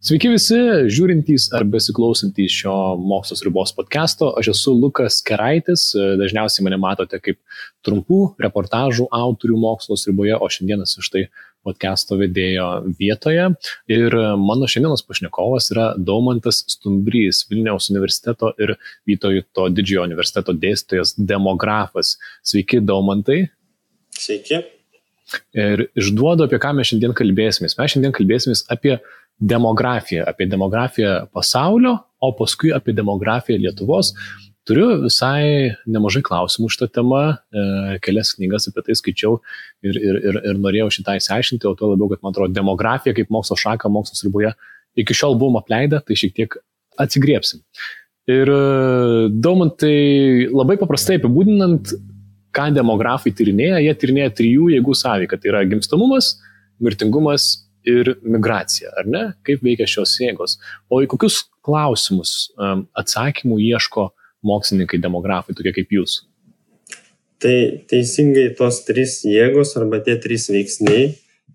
Sveiki visi, žiūrintys ar besiklausantys šio Mokslo ribos podcasto. Aš esu Lukas Keraitis, dažniausiai mane matote kaip trumpų reportažų autorių Mokslo riboje, o šiandienas iš tai podcasto vedėjo vietoje. Ir mano šiandienos pašnekovas yra Daumantas Stumbrys, Vilniaus universiteto ir Vytauto Didžiojo universiteto dėstytojas, demografas. Sveiki, Daumantai. Sveiki. Ir išduodu, apie ką mes šiandien kalbėsimės. Mes šiandien kalbėsimės apie demografiją pasaulio, o paskui apie demografiją Lietuvos. Turiu visai nemažai klausimų šitą temą, kelias knygas apie tai skaičiau ir norėjau šitą įsiaiškinti, o tuo labiau, kad man atrodo demografija kaip mokslo šaka, mokslo riboje iki šiol buvom apleidę, tai šiek tiek atsigriepsim. Ir Daumantai, labai paprastai apibūdinant, ką demografai tyrinėja, jie tyrinėja 3 jėgų sąveiką, tai yra gimstamumas, mirtingumas ir migracija, ar ne? Kaip veikia šios jėgos? O į kokius klausimus atsakymų ieško mokslininkai, demografai, tokie kaip jūs? Tai teisingai tos 3 jėgos arba tie 3 veiksniai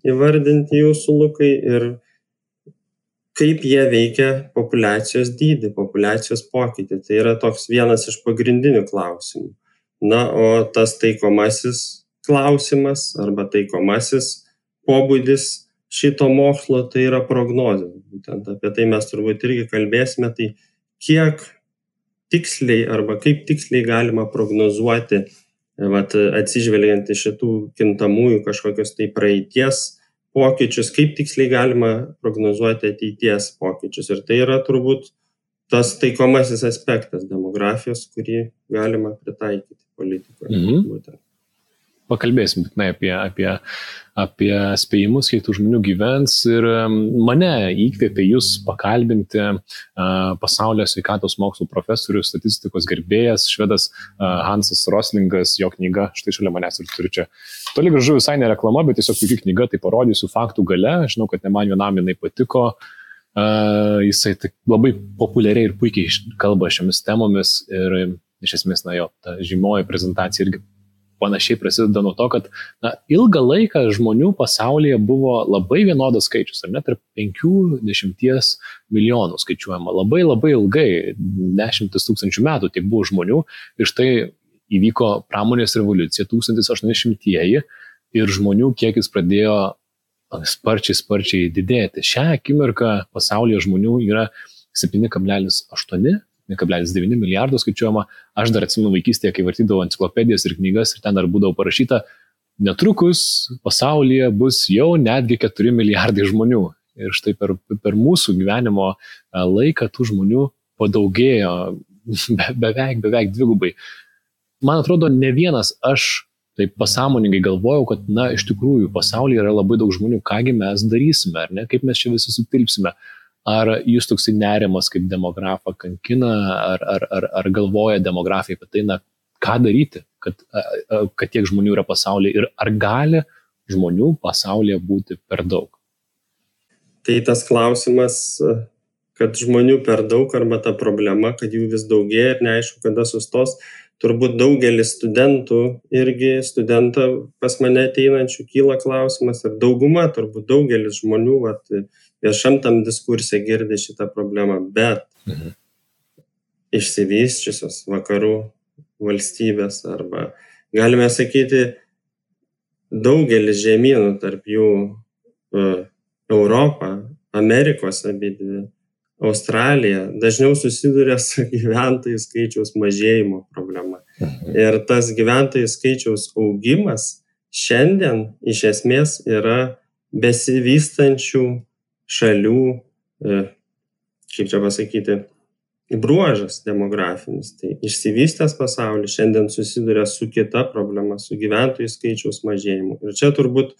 įvardinti jūsų, Lukai, ir kaip jie veikia populiacijos dydį, populiacijos pokytį. Tai yra toks vienas iš pagrindinių klausimų. Na, o tas taikomasis klausimas arba taikomasis pobūdis šito mokslo tai yra prognozė. Būtent apie tai mes turbūt irgi kalbėsime, tai kiek tiksliai arba kaip tiksliai galima prognozuoti, atsižvelgiant į šitų kintamųjų kažkokios tai praeities pokyčius, kaip tiksliai galima prognozuoti ateities pokyčius. Ir tai yra turbūt tas taikomasis aspektas demografijos, kurį galima pritaikyti politikoje. Būtent. Pakalbėsim apie spėjimus, kiek tų žmonių gyvens, ir mane įkvėpė jūs pakalbinti pasaulio sveikatos mokslų profesorius, statistikos gerbėjas, švedas Hansas Roslingas, jo knyga, štai šalia manęs ir turiu čia. Toli gražu visai ne reklama, bet tiesiog puikia knyga, tai parodysiu faktų gale, žinau, kad ne man vienam jinai patiko, jisai labai populiariai ir puikiai kalba šiomis temomis ir iš esmės, jo, ta žymioji prezentacija irgi panašiai prasideda nuo to, kad ilgą laiką žmonių pasaulyje buvo labai vienodas skaičius, ar net tarp 50 milijonų skaičiuojama. Labai ilgai, 10 tūkstančių metų tiek buvo žmonių, ir štai įvyko pramonės revoliucija 1800-ieji ir žmonių kiekis pradėjo sparčiai didėti. Šią akimirką pasaulyje žmonių yra 7,8 1,9 milijardo skaičiuojama. Aš dar atsimenu vaikystėje, kai vartydavau enciklopedijas ir knygas, ir ten dar būdavo parašyta, netrukus pasaulyje bus jau netgi 4 milijardai žmonių. Ir štai per mūsų gyvenimo laiką tų žmonių padaugėjo beveik dvigubai. Man atrodo, ne vienas aš taip pasąmoningai galvojau, kad iš tikrųjų pasaulyje yra labai daug žmonių, kągi mes darysime, ar ne, kaip mes čia visi sutilpsime. Ar jūs toksai nerimas kaip demografą kankina, ar galvoja demografai apie tai, ką daryti, kad tiek žmonių yra pasaulyje, ir ar gali žmonių pasaulyje būti per daug? Tai tas klausimas, kad žmonių per daug, arba ta problema, kad jų vis daugėja ir neaišku, kada sustos, turbūt daugelis studentą pas mane ateinančių kyla klausimas, ir dauguma, turbūt daugelis žmonių viešam tam diskurse girdi šitą problemą, bet išsivysčiusios vakarų valstybės, arba galime sakyti daugelis žemynų, tarp jų Europą, Amerikos abidvi, Australija, dažniau susiduria su gyventojų skaičiaus mažėjimo problema. Ir tas gyventojų skaičiaus augimas šiandien iš esmės yra besivystančių šalių, kaip čia pasakyti, bruožas demografinis. Tai išsivystęs pasaulis šiandien susiduria su kita problema, su gyventojų skaičiaus mažėjimu. Ir čia turbūt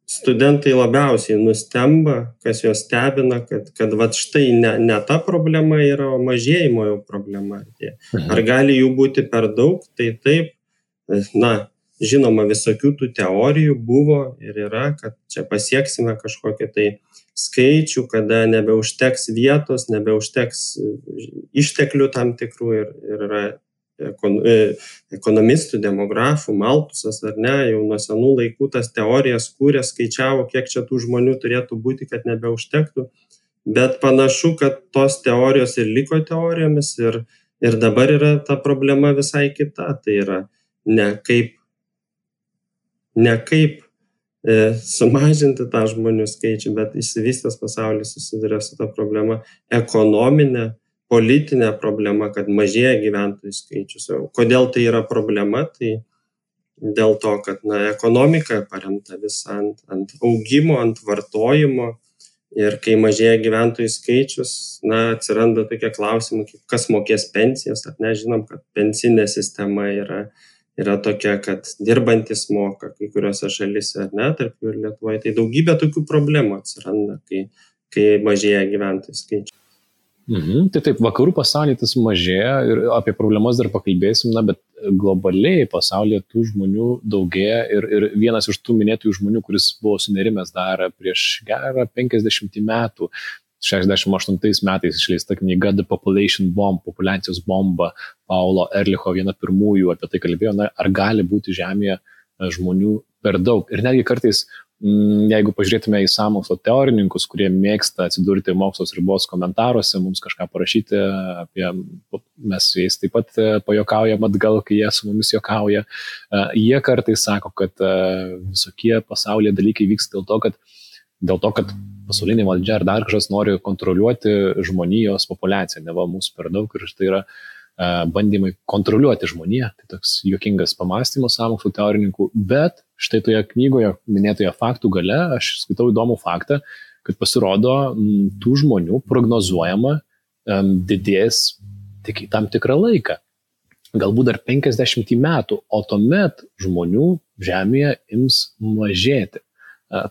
studentai labiausiai nustemba, kas juos stebina, kad štai ne ta problema yra, o mažėjimo jau problema. Ar gali jų būti per daug? Tai taip, žinoma, visokių tų teorijų buvo ir yra, kad čia pasieksime kažkokią tai skaičių, kada nebeužteks vietos, nebeužteks išteklių tam tikrų, ir yra apie ekonomistų, demografų, Maltusas, ar ne, jau nuo senų laikų tas teorijas kūrė, skaičiavo, kiek čia tų žmonių turėtų būti, kad nebeužtektų, bet panašu, kad tos teorijos ir liko teorijomis ir dabar yra ta problema visai kita, tai yra ne kaip sumažinti tą žmonių skaičių, bet išsivystęs pasaulis susiduria su ta problema ekonominė, politinė problema, kad mažėja gyventojų skaičius. Kodėl tai yra problema? Tai dėl to, kad ekonomika paremta visą ant augimo, ant vartojimo ir kai mažėja gyventojų skaičius, atsiranda tokie klausimai, kas mokės pensijas, ar ne, žinom, kad pensinė sistema yra tokia, kad dirbantis moka kai kuriuose šalyse, ar ne, tarp jų ir Lietuvoje. Tai daugybė tokių problemų atsiranda, kai mažėja gyventojų skaičius. Tai taip, vakarų pasaulyje tas mažėja ir apie problemas dar pakalbėsim, bet globaliai pasaulyje tų žmonių daugėja ir vienas iš tų minėtųjų žmonių, kuris buvo sunerimęs dar prieš gerą 50 metų, 68 metais išleista knyga The Population Bomb, populiacijos bomba, Paulo Erlicho, viena pirmųjų apie tai kalbėjo, ar gali būti Žemėje žmonių per daug. Ir netgi kartais, jeigu pažiūrėtume į sąmokslo teorininkus, kurie mėgsta atsidurti mokslos ribos komentaruose, mums kažką parašyti apie, mes su jais taip pat pajuokaujam atgal, kai jie su mumis juokauja, jie kartais sako, kad visokie pasaulyje dalykai vyksta dėl to, kad pasaulinė valdžia ar dar kažkas nori kontroliuoti žmonijos populiaciją, neva mūsų per daug ir tai yra bandymai kontroliuoti žmoniją, tai toks juokingas pamastymas sąmokslo teorininkų, bet štai toje knygoje minėtoje faktų gale aš skaitau įdomų faktą, kad pasirodo tų žmonių prognozuojama didės tik į tam tikrą laiką, galbūt dar 50 metų, o tuomet žmonių Žemėje ims mažėti.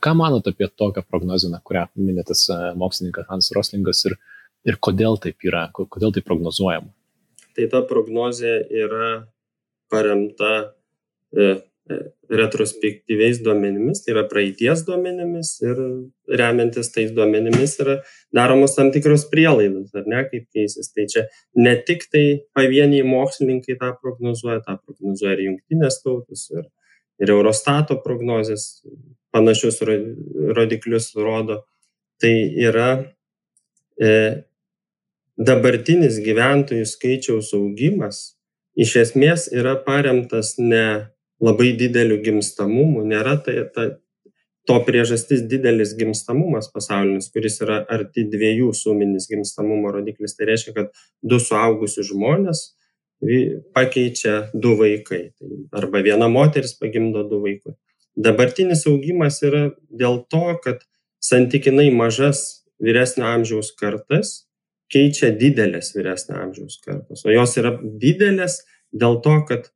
Ką manot apie tokią prognozę, kurią minėtas mokslininkas Hans Roslingas ir kodėl taip yra, kodėl tai prognozuojama? Tai ta prognozė yra paremta retrospektyviais duomenimis, tai yra praeities duomenimis ir remiantis tais duomenimis yra daromos tam tikros prielaidos, ar ne, kaip keisis. Tai čia ne tik tai pavieniai mokslininkai tą prognozuoja ir Jungtinės tautos, ir Eurostato prognozės panašius rodiklius rodo. Tai yra dabartinis gyventojų skaičiaus augimas iš esmės yra paremtas ne labai dideliu gimstamumu, nėra to priežastis didelis gimstamumas pasaulinis, kuris yra arti 2 suminis gimstamumo rodiklis. Tai reiškia, kad 2 suaugusius žmonės pakeičia 2 vaikai, arba viena moteris pagimdo 2 vaikus. Dabartinis augimas yra dėl to, kad santykinai mažas vyresnio amžiaus kartas keičia didelės vyresnio amžiaus kartos, o jos yra didelės dėl to, kad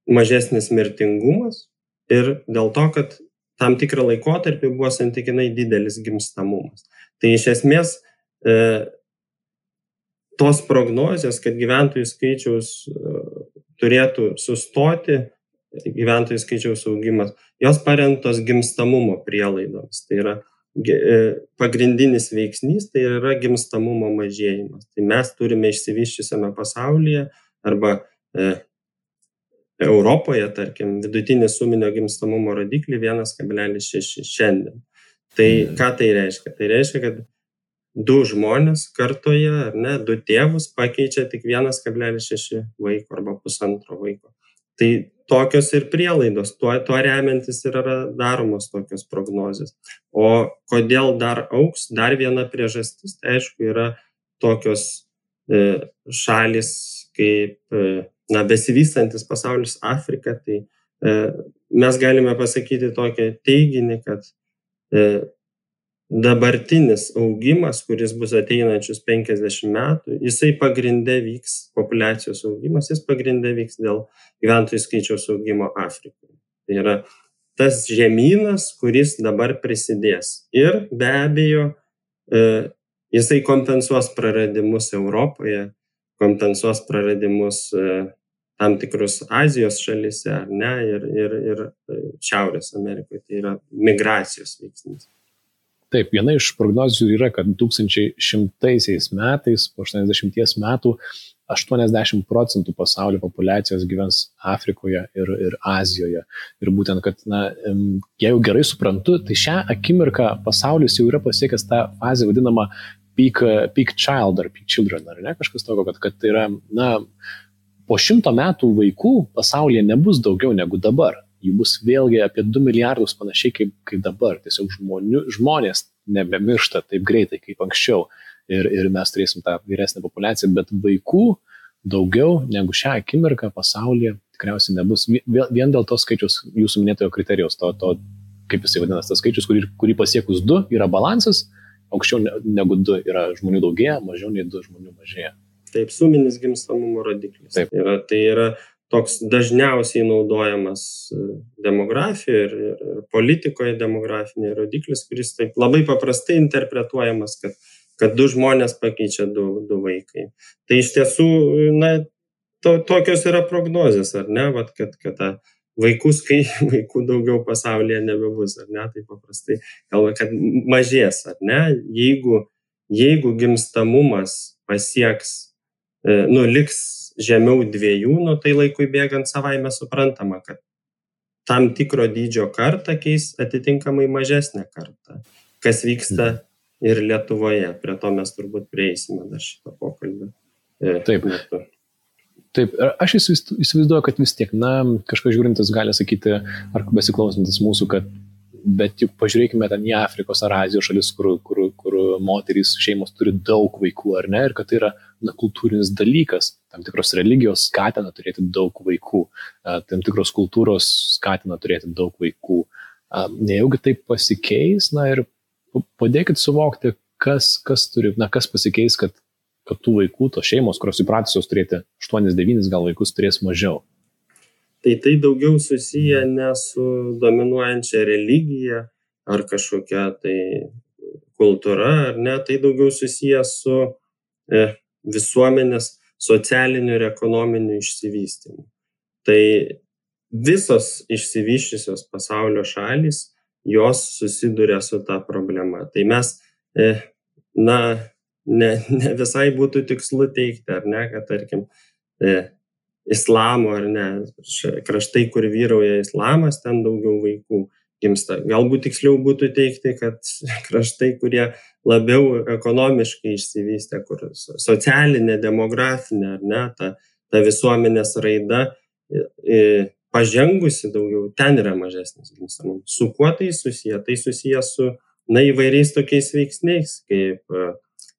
mažesnis mirtingumas ir dėl to, kad tam tikrą laikotarpį buvo santykinai didelis gimstamumas. Tai iš esmės tos prognozės, kad gyventojų skaičiaus turėtų sustoti, gyventojų skaičiaus augimas, jos paremtos gimstamumo prielaidomis. Tai yra pagrindinis veiksnys, tai yra gimstamumo mažėjimas. Tai mes turime išsivysčiusiame pasaulyje arba Europoje, tarkim, vidutinį suminio gimstamumo rodiklį 1,6 šiandien. Tai ką tai reiškia? Tai reiškia, kad 2 žmonės kartoje, ar ne, 2 tėvus pakeičia tik 1,6 vaiko arba 1,5 vaiko. Tai tokios ir prielaidos, tuo remiantis ir yra daromos tokios prognozės. O kodėl dar augs? Dar viena priežastis, tai aišku, yra tokios šalis kaip besivystantis pasaulis Afrika. Tai mes galime pasakyti tokį teiginį, kad dabartinis augimas, kuris bus ateinančius 50 metų, jisai pagrinde vyks, populiacijos augimas, jis pagrinde vyks dėl gyventojų skaičiaus augimo Afrikoje. Tai yra tas žemynas, kuris dabar prisidės. Ir be abejo, jisai kompensuos praradimus Europoje, kompensuos praradimus tam tikrus Azijos šalyse, ar ne, ir Šiaurės Amerikoje. Tai yra migracijos veiksnys. Taip, viena iš prognozių yra, kad 2100 metais, po 80 metų, 80% pasaulio populiacijos gyvens Afrikoje ir Azijoje. Ir būtent, kad, jeigu gerai suprantu, tai šią akimirką pasaulis jau yra pasiekęs tą fazę vadinamą peak child ar peak children, ar ne, kažkas tokio, kad tai yra, po 100 metų vaikų pasaulyje nebus daugiau negu dabar. Jų bus vėlgi apie 2 milijardus panašiai kaip dabar. Tiesiog žmonės nebemiršta taip greitai kaip anksčiau. Ir mes turėsim tą vyresnę populiaciją, bet vaikų daugiau negu šią akimirką pasaulyje tikriausiai nebus. Vien dėl to skaičiaus jūsų minėtojo kriterijaus, to kaip jisai vadinas, tas skaičius, kurį pasiekus 2 yra balansas, aukščiau negu 2 yra žmonių daugėja, mažiau nei 2 žmonių mažėja. Taip, suminis gimstamumo rodiklis. Taip. Tai yra toks dažniausiai naudojamas demografijoje ir politikoje demografinė rodiklis, kuris taip labai paprastai interpretuojamas, kad 2 žmonės pakeičia 2 vaikai. Tai iš tiesų, tokios yra prognozės, ar ne, kad vaikų daugiau pasaulyje nebebus, ar ne, tai paprastai kalba, kad mažės, ar ne, jeigu gimstamumas pasieks, liks žemiau 2, tai laikui bėgant savaime suprantama, kad tam tikro dydžio kartą keis atitinkamai mažesnę kartą, kas vyksta ir Lietuvoje. Prie to mes turbūt prieisime dar šito pokalbio. Taip, aš įsivaizduoju, kad vis tiek, kažkas žiūrintis gali sakyti, ar besiklausantis mūsų, kad bet juk pažiūrėkime ten į Afrikos ar Azijos šalis, kur moterys šeimos turi daug vaikų, ar ne, ir kad tai yra kultūrinis dalykas, tam tikros religijos skatina turėti daug vaikų, tam tikros kultūros skatina turėti daug vaikų. Nejaugi taip pasikeis, ir padėkit suvokti, kas pasikeis, kad tų vaikų, tos šeimos, kurios įpratusios turėti 8-9 gal vaikus, turės mažiau. Tai daugiau susiję ne su dominuojančia religija ar kažkokia tai kultūra, ar ne, tai daugiau susiję su visuomenės socialiniu ir ekonominiu išsivystymu. Tai visos išsivysčiusios pasaulio šalys, jos susiduria su ta problema. Tai mes, ne visai būtų tikslu teigti, ar ne, kad tarkim, islamo ar ne, kraštai, kur vyrauja islamas, ten daugiau vaikų gimsta. Galbūt tiksliau būtų teikti, kad kraštai, kurie labiau ekonomiškai išsivystę, kur socialinė, demografinė, ar ne, ta visuomenės raida pažengusi daugiau, ten yra mažesnis gimstamumas. Su kuo tai susiję? Tai susiję su įvairiais tokiais veiksniais, kaip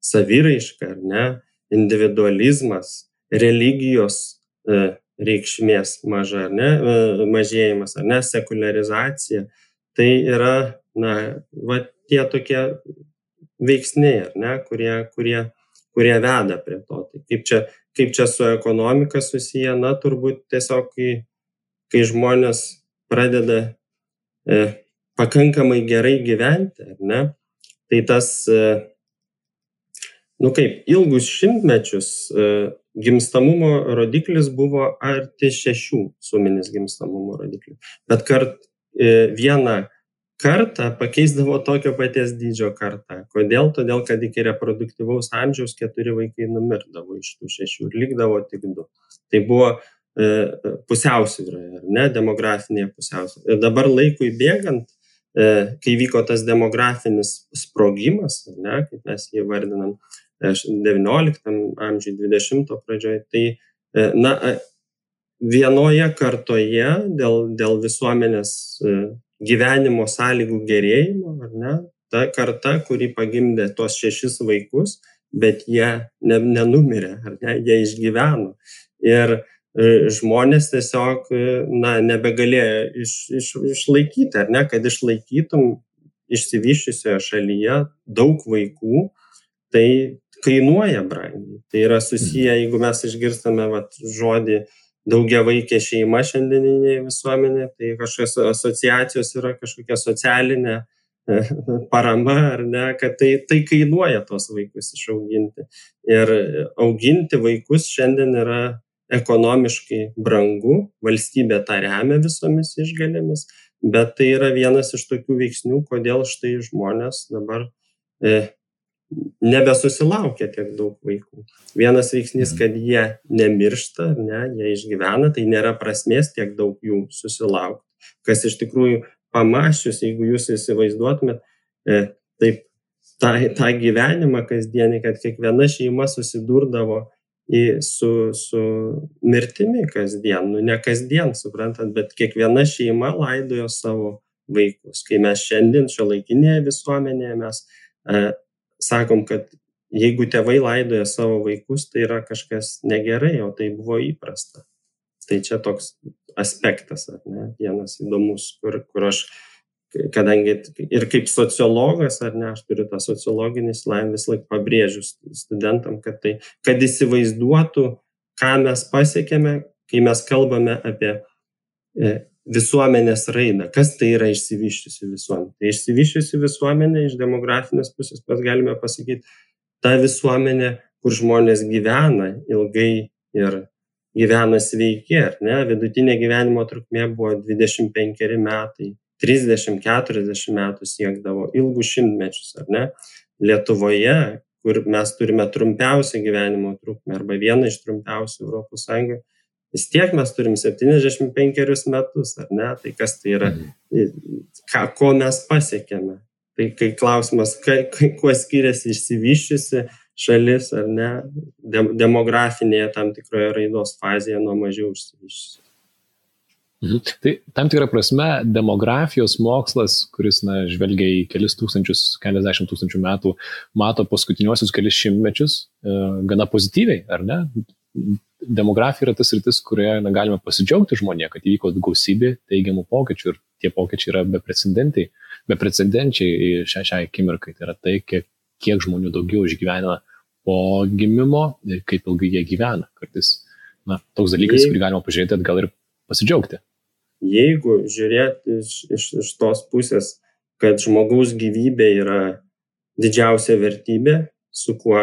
saviraiška, ar ne, individualizmas, religijos reikšmės maža, ar ne, mažėjimas, ar ne, sekuliarizacija. Tai yra, tie tokie veiksniai, ar ne, kurie veda prie to. Tai kaip čia su ekonomika susiję, turbūt tiesiog, kai žmonės pradeda pakankamai gerai gyventi, ar ne, tai tas, ilgus šimtmečius gimstamumo rodiklis buvo arti 6 suminis gimstamumo rodiklis. Bet vieną kartą pakeisdavo tokio paties dydžio kartą. Kodėl? Todėl, kad iki reproduktyvaus amžiaus 4 vaikai numirdavo iš tų 6 ir likdavo tik 2. Tai buvo pusiausvyra, ar ne, demografinė pusiausvyra. Ir dabar laikui bėgant, kai vyko tas demografinis sprogimas, ar ne, kaip mes jį vardinam, 19 amžiui, 20 pradžioje, tai vienoje kartoje dėl visuomenės gyvenimo sąlygų gerėjimo, ar ne, ta karta, kuri pagimdė tuos 6 vaikus, bet jie nenumirė, ar ne, jie išgyveno. Ir žmonės tiesiog nebegalėjo išlaikyti, ar ne, kad išlaikytum išsivysčiusioje šalyje daug vaikų, tai kainuoja brangiai. Tai yra susiję, jeigu mes išgirstame žodį daugiavaikė šeima šiandieninėje visuomenėje, tai kažkokios asociacijos yra kažkokia socialinė parama, ar ne, kad tai kainuoja tos vaikus išauginti. Ir auginti vaikus šiandien yra ekonomiškai brangu, valstybė tą remia visomis išgalėmis, bet tai yra vienas iš tokių veiksnių, kodėl štai žmonės dabar nebesusilaukia tiek daug vaikų. Vienas veiksnys, kad jie nemiršta, jie išgyvena, tai nėra prasmės tiek daug jų susilaukti. Kas iš tikrųjų pamačius, jeigu jūs įsivaizduotumėt, taip tą gyvenimą kasdienį, kad kiekviena šeima susidurdavo su mirtimi kasdien, ne kasdien, suprantat, bet kiekviena šeima laidojo savo vaikus. Kai mes šiandien šiuolaikinėje visuomenėje mes sakom, kad jeigu tėvai laidoja savo vaikus, tai yra kažkas negerai, o tai buvo įprasta. Tai čia toks aspektas, vienas įdomus, kur aš, kadangi ir kaip sociologas, aš turiu tą sociologinį išsilavinimą, vis laik pabrėžiu studentam, kad įsivaizduotų, ką mes pasiekėme, kai mes kalbame apie visuomenės raidą. Kas tai yra išsivysčiusi visuomenė? Tai išsivysčiusi visuomenė iš demografinės pusės mes galime pasakyti, ta visuomenė, kur žmonės gyvena ilgai ir gyvena sveiki, vidutinė gyvenimo trukmė buvo 25 metai, 30-40 metų siekdavo ilgus šimtmečius, Lietuvoje, kur mes turime trumpiausią gyvenimo trukmę arba vieną iš trumpiausių Europos Sąjungoje, vis tiek mes turim 75 metus, Tai kas tai yra, ko mes pasiekėme? Tai kai klausimas, kuo skiriasi išsivysčiusi šalis, demografinėje tam tikroje raidos fazėje nuo mažiau išsivysčiusi. Tai tam tikrą prasme demografijos mokslas, kuris žvelgia į keliasdešimt tūkstančių metų, mato paskutiniuosius kelis šimtmečius gana pozityviai, ar ne? Demografija yra tas sritis, kurioje galime pasidžiaugti žmonėje, kad įvyko gausybė teigiamų pokyčių ir tie pokyčiai yra beprecedenčiai šiai akimirkai. Tai yra tai, kiek žmonių daugiau išgyvena po gimimo ir kaip ilgai jie gyvena. Kartais toks dalykas, kurį galima pažiūrėti atgal ir pasidžiaugti. Jeigu žiūrėti iš tos pusės, kad žmogaus gyvybė yra didžiausia vertybė, su kuo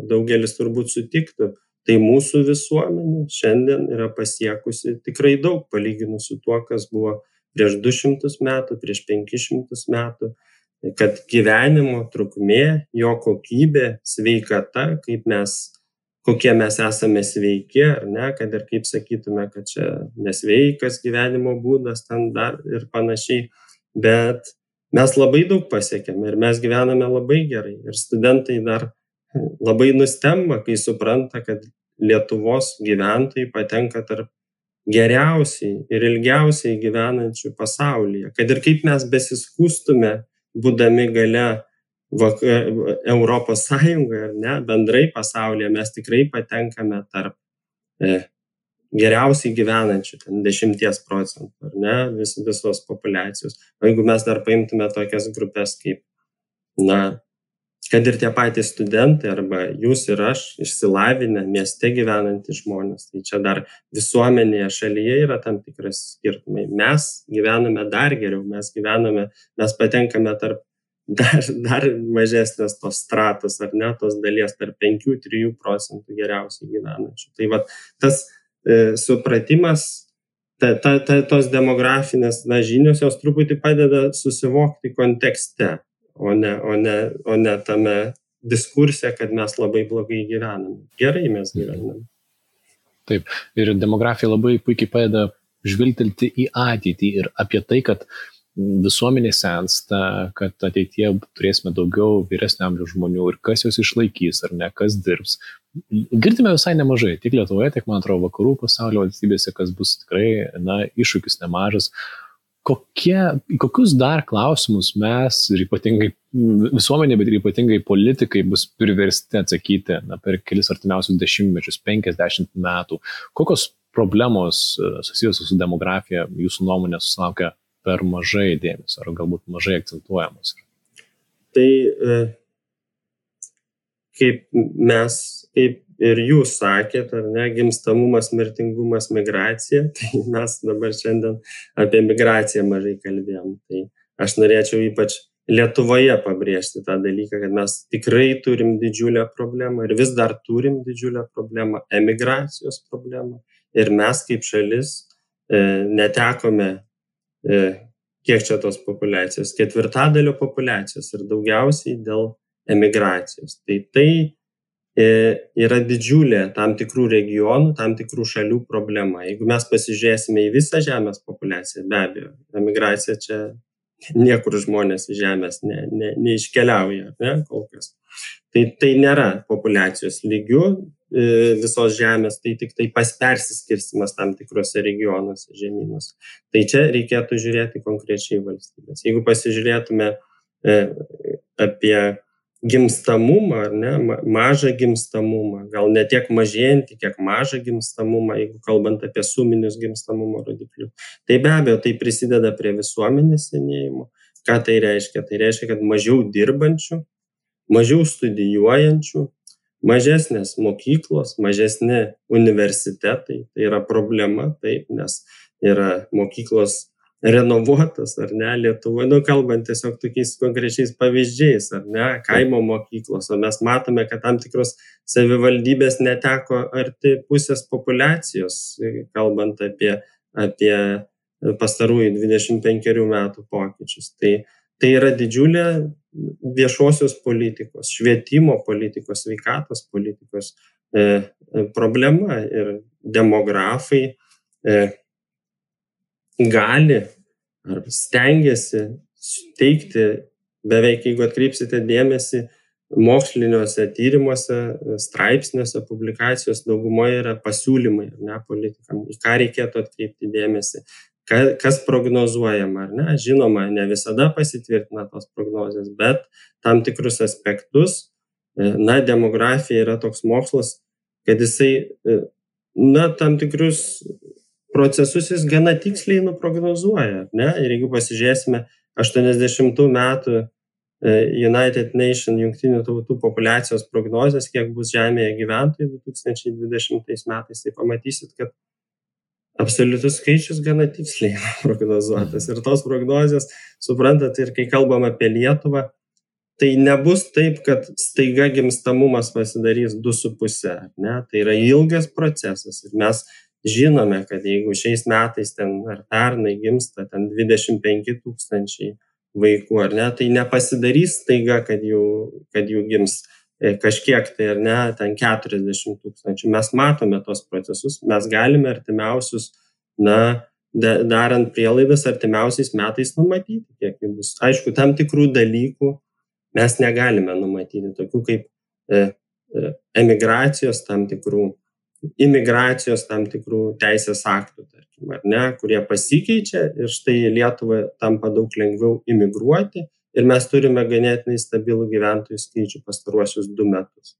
daugelis turbūt sutiktų, tai mūsų visuomenė šiandien yra pasiekusi tikrai daug palyginus su tuo, kas buvo prieš 200 metų, prieš 500 metų, kad gyvenimo trukmė, jo kokybė, sveikata, kokie mes esame sveiki, kad ir kaip sakytume, kad čia nesveikas gyvenimo būdas ten dar ir panašiai, bet mes labai daug pasiekėme ir mes gyvename labai gerai ir studentai dar labai nustemba, kai supranta, kad Lietuvos gyventojai patenka tarp geriausiai ir ilgiausiai gyvenančių pasaulyje. Kad ir kaip mes besiskustume, būdami gale Europos Sąjungoje, bendrai pasaulyje, mes tikrai patenkame tarp geriausiai gyvenančių, 10%, visos populiacijos. O jeigu mes dar paimtume tokias grupės kaip, kad ir tie patys studentai arba jūs ir aš, išsilavinę, mieste gyvenantys žmonės, tai čia dar visuomenėje šalyje yra tam tikras skirtumai. Mes gyvename dar geriau, mes patenkame tarp dar mažesnės tos stratos, tos dalies tarp 5-3% geriausiai gyvenančių. Tai tas supratimas, tos demografinės žinios, jos truputį padeda susivokti kontekste. O ne tame diskurse, kad mes labai blogai gyvename. Gerai mes gyvename. Taip, ir demografija labai puikiai padeda žvilgtelti į ateitį ir apie tai, kad visuomenė sensta, kad ateityje turėsime daugiau vyresnio amžiaus žmonių ir kas jos išlaikys, ar ne, kas dirbs. Girdime visai nemažai, tiek Lietuvoje, tiek, man atrodo, vakarų pasaulio valstybėse, kas bus tikrai, iššūkis nemažas. Kokius dar klausimus mes ir ypatingai visuomenė, bet ir ypatingai politikai bus priversti atsakyti per kelis artimiausius dešimtmečius, 50 metų? Kokios problemos susijusios su demografija jūsų nuomonė susilaukia per mažai dėmesio ar galbūt mažai akcentuojamos? Tai kaip ir jūs sakėt, gimstamumas, mirtingumas, migracija, tai mes dabar šiandien apie migraciją mažai kalbėjom. Tai aš norėčiau ypač Lietuvoje pabrėžti tą dalyką, kad mes tikrai turim didžiulę problemą ir vis dar turim didžiulę problemą, emigracijos problemą. Ir mes kaip šalis netekome, kiek čia tos populiacijos, 1/4 populiacijos ir daugiausiai dėl emigracijos. Tai yra didžiulė tam tikrų regionų, tam tikrų šalių problema. Jeigu mes pasižiūrėsime į visą žemės populiaciją, be abejo, emigracija čia niekur žmonės iš žemės neiškeliauja, ne, kol kas. Tai nėra populiacijos lygių visos žemės, tai tik tai persiskirstimas tam tikrose regionuose, žemynuose. Tai čia reikėtų žiūrėti konkrečiai valstybės. Jeigu pasižiūrėtume apie gimstamumą, ar ne, mažą gimstamumą, gal ne tiek mažėjantį, kiek mažą gimstamumą, jeigu kalbant apie suminius gimstamumo rodiklius. Tai be abejo, tai prisideda prie visuomenės senėjimo. Ką tai reiškia? Tai reiškia, kad mažiau dirbančių, mažiau studijuojančių, mažesnės mokyklos, mažesni universitetai. Tai yra problema, taip, nes yra mokyklos renovuotas, ar ne, Lietuvoje, kalbant tiesiog tokiais konkrečiais pavyzdžiais, ar ne, kaimo mokyklos, o mes matome, kad tam tikros savivaldybės neteko arti pusės populiacijos, kalbant apie pastarųjų 25 metų pokyčius. Tai yra didžiulė viešosios politikos, švietimo politikos, sveikatos politikos problema ir demografai gali ar stengiasi teikti, beveik jeigu atkreipsite dėmesį, moksliniuose tyrimuose, straipsniuose, publikacijos daugumoje yra pasiūlymai, ar ne, politikam, į ką reikėtų atkreipti dėmesį, kas prognozuojama, ar ne. Žinoma, ne visada pasitvirtina tos prognozės, bet tam tikrus aspektus, demografija yra toks mokslas, kad jisai, tam tikrus procesus jis gana tiksliai nuprognozuoja, ne? Ir jeigu pasižiūrėsime 80 metų United Nations jungtinių tautų populiacijos prognozės, kiek bus Žemėje gyventojų 2020 metais, tai pamatysit, kad absoliutus skaičius gana tiksliai prognozuotas. Ir tos prognozės, suprantat, ir kai kalbam apie Lietuvą, tai nebus taip, kad staiga gimstamumas pasidarys 2,5, ne? Tai yra ilgas procesas ir mes žinome, kad jeigu šiais metais ar pernai gimsta 25 000 vaikų, ar ne, tai nepasidarys staiga, kad jų gims kažkiek tai, ar ne, 40 000. Mes matome tos procesus, mes galime artimiausius, darant prielaidas artimiausiais metais numatyti, kiek jų bus. Aišku, tam tikrų dalykų mes negalime numatyti, tokių kaip emigracijos tam tikrų, imigracijos tam tikrų teisės aktų, tarkim, ar ne, kurie pasikeičia ir štai Lietuvai tampa daug lengviau imigruoti ir mes turime ganėtinai stabilų gyventojų skaičių pastaruosius 2 metus.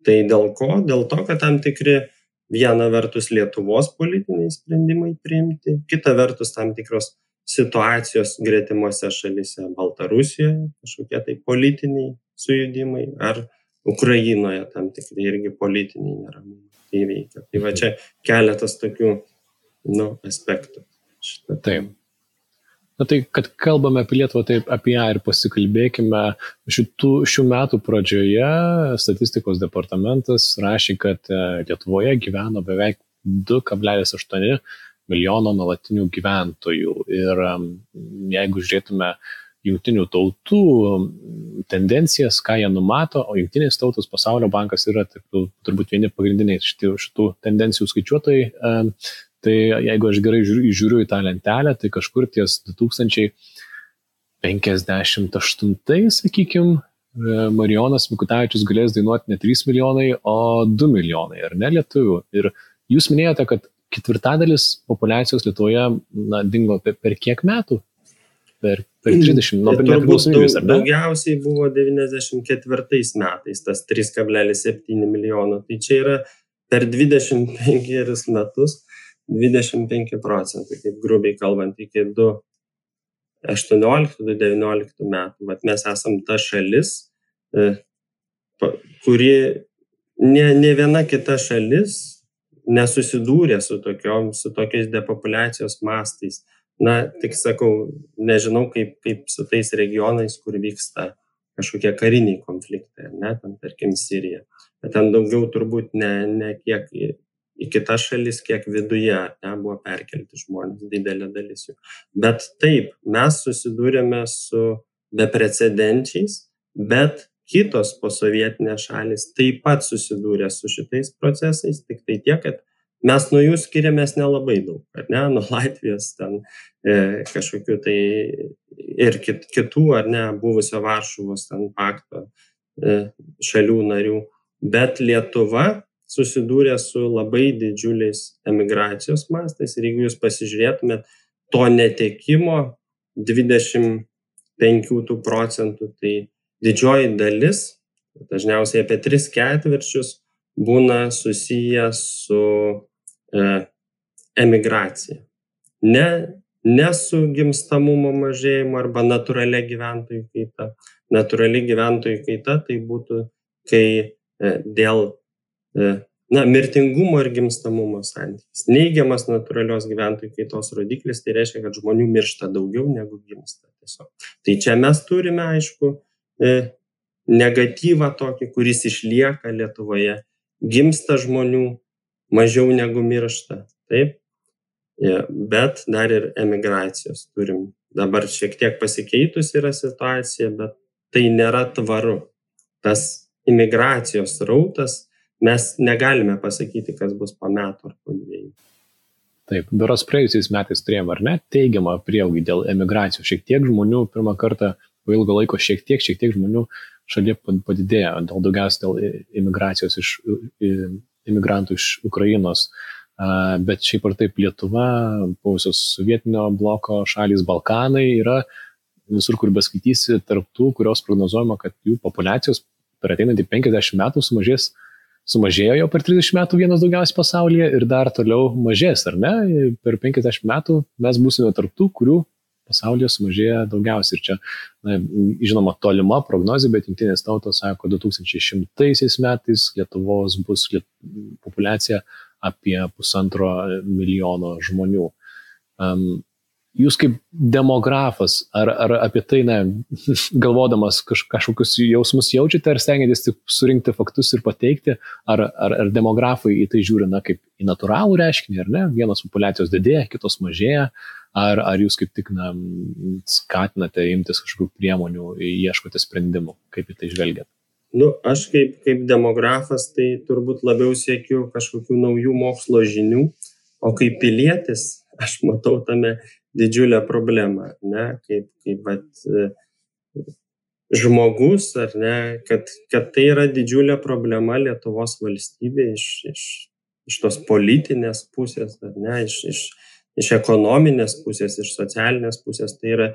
Tai dėl ko? Dėl to, kad tam tikri viena vertus Lietuvos politiniai sprendimai priimti, kita vertus tam tikros situacijos gretimose šalyse, Baltarusijoje, kažkokie tai politiniai sujudimai, ar Ukrainoje tam tikri irgi politiniai neramumai įveikia. Tai va čia keletas tokių aspektų. Taip. Tai, kad kalbame apie Lietuvą, taip apie ją ir pasikalbėkime. Šių metų pradžioje statistikos departamentas rašė, kad Lietuvoje gyveno beveik 2,8 milijono nuolatinių gyventojų. Ir jeigu žiūrėtume jungtinių tautų tendencijas, ką jie numato, o jungtinės tautos, Pasaulio bankas yra turbūt vieni pagrindiniai šitų tendencijų skaičiuotojai, tai jeigu aš gerai žiūriu į tą lentelę, tai kažkur ties 2058, sakykime, Marijonas Mikutavičius galės dainuoti ne 3 milijonai, o 2 milijonai, ar ne, lietuvių. Ir jūs minėjote, kad 1/4 populiacijos Lietuvoje dingo per kiek metų? Per 30, nuo nepriklausomybės, ar ne? Daugiausiai buvo 94 metais, tas 3,7 milijono. Tai čia yra per 25 metus 25%, kaip grubiai kalbant, iki 2018-2019 metų. Vat mes esam ta šalis, kuri ne viena kita šalis nesusidūrė su tokiais depopuliacijos mastais. Tik sakau, nežinau kaip su tais regionais, kur vyksta kažkokie kariniai konfliktai, ne, ten, tarkim, Sirija. Bet ten daugiau turbūt ne kiek į kitas šalis, kiek viduje buvo perkelti žmonės, didelė dalis jų. Bet taip, mes susidūrėme su beprecedenčiais, bet kitos posovietinės šalys taip pat susidūrė su šitais procesais, tik tai tiek, kad mes nuo jų skiriamės nelabai daug, ar ne, nuo Latvijos ten kažkokių tai ir kitų, ar ne, buvusio Varšuvos ten pakto šalių narių, bet Lietuva susidūrė su labai didžiuliais emigracijos mastais ir jeigu jūs pasižiūrėtumėt to netekimo 25 procentų, tai didžioji dalis, dažniausiai apie 3/4 būna susiję su emigracija. Ne su gimstamumo mažėjimu arba natūralia gyventojų kaita. Natūrali gyventojų kaita tai būtų, kai dėl mirtingumo ir gimstamumo santykis. Neigiamas natūralios gyventojų kaitos rodiklis, tai reiškia, kad žmonių miršta daugiau negu gimsta tiesiog. Tai čia mes turime, aišku, negatyvą tokį, kuris išlieka Lietuvoje. Gimsta žmonių mažiau negu miršta, taip? Bet dar ir emigracijos turim. Dabar šiek tiek pasikeitus yra situacija, bet tai nėra tvaru. Tas imigracijos rautas, mes negalime pasakyti, kas bus po metų ar po 2. Taip, berods praėjusiais metais turėjome, ar ne, teigiamą prieaugį dėl emigracijos. Šiek tiek žmonių pirmą kartą po ilgo laiko šiek tiek žmonių šalyje padidėjo, daugiausiai dėl imigracijos imigrantų iš Ukrainos. Bet šiaip ar taip Lietuva, buvusios sovietinio bloko šalys, Balkanai yra visur, kur beskaitysi, tarptų, kurios prognozuojama, kad jų populiacijos per ateinantį 50 metų sumažėjo jau per 30 metų vienas daugiausiai pasaulyje ir dar toliau mažės, ar ne? Per 50 metų mes būsime tarptų, kurių pasaulyje sumažėja daugiausiai. Ir čia, žinoma, tolima prognozė, bet Jungtinės tautos sako, 2100 metais Lietuvos bus populiacija apie 1,5 milijono žmonių. Jūs kaip demografas, ar apie tai, galvodamas kažkokius jausmus jaučiate, ar stengiatės tik surinkti faktus ir pateikti, ar demografai į tai žiūri, kaip į natūralų reiškinį, ar ne? Vienos populiacijos didėja, kitos mažėja, ar jūs kaip tik skatinate imtis kažkokių priemonių, ieškote sprendimų, kaip į tai žvelgiate? Aš kaip demografas, tai turbūt labiau siekiu kažkokių naujų mokslo žinių, o kaip pilietis, aš matau tame didžiulę problemą, ne, kaip žmogus, ar ne, kad tai yra didžiulė problema Lietuvos valstybė iš tos politinės pusės, ar ne, iš ekonominės pusės, iš socialinės pusės, tai yra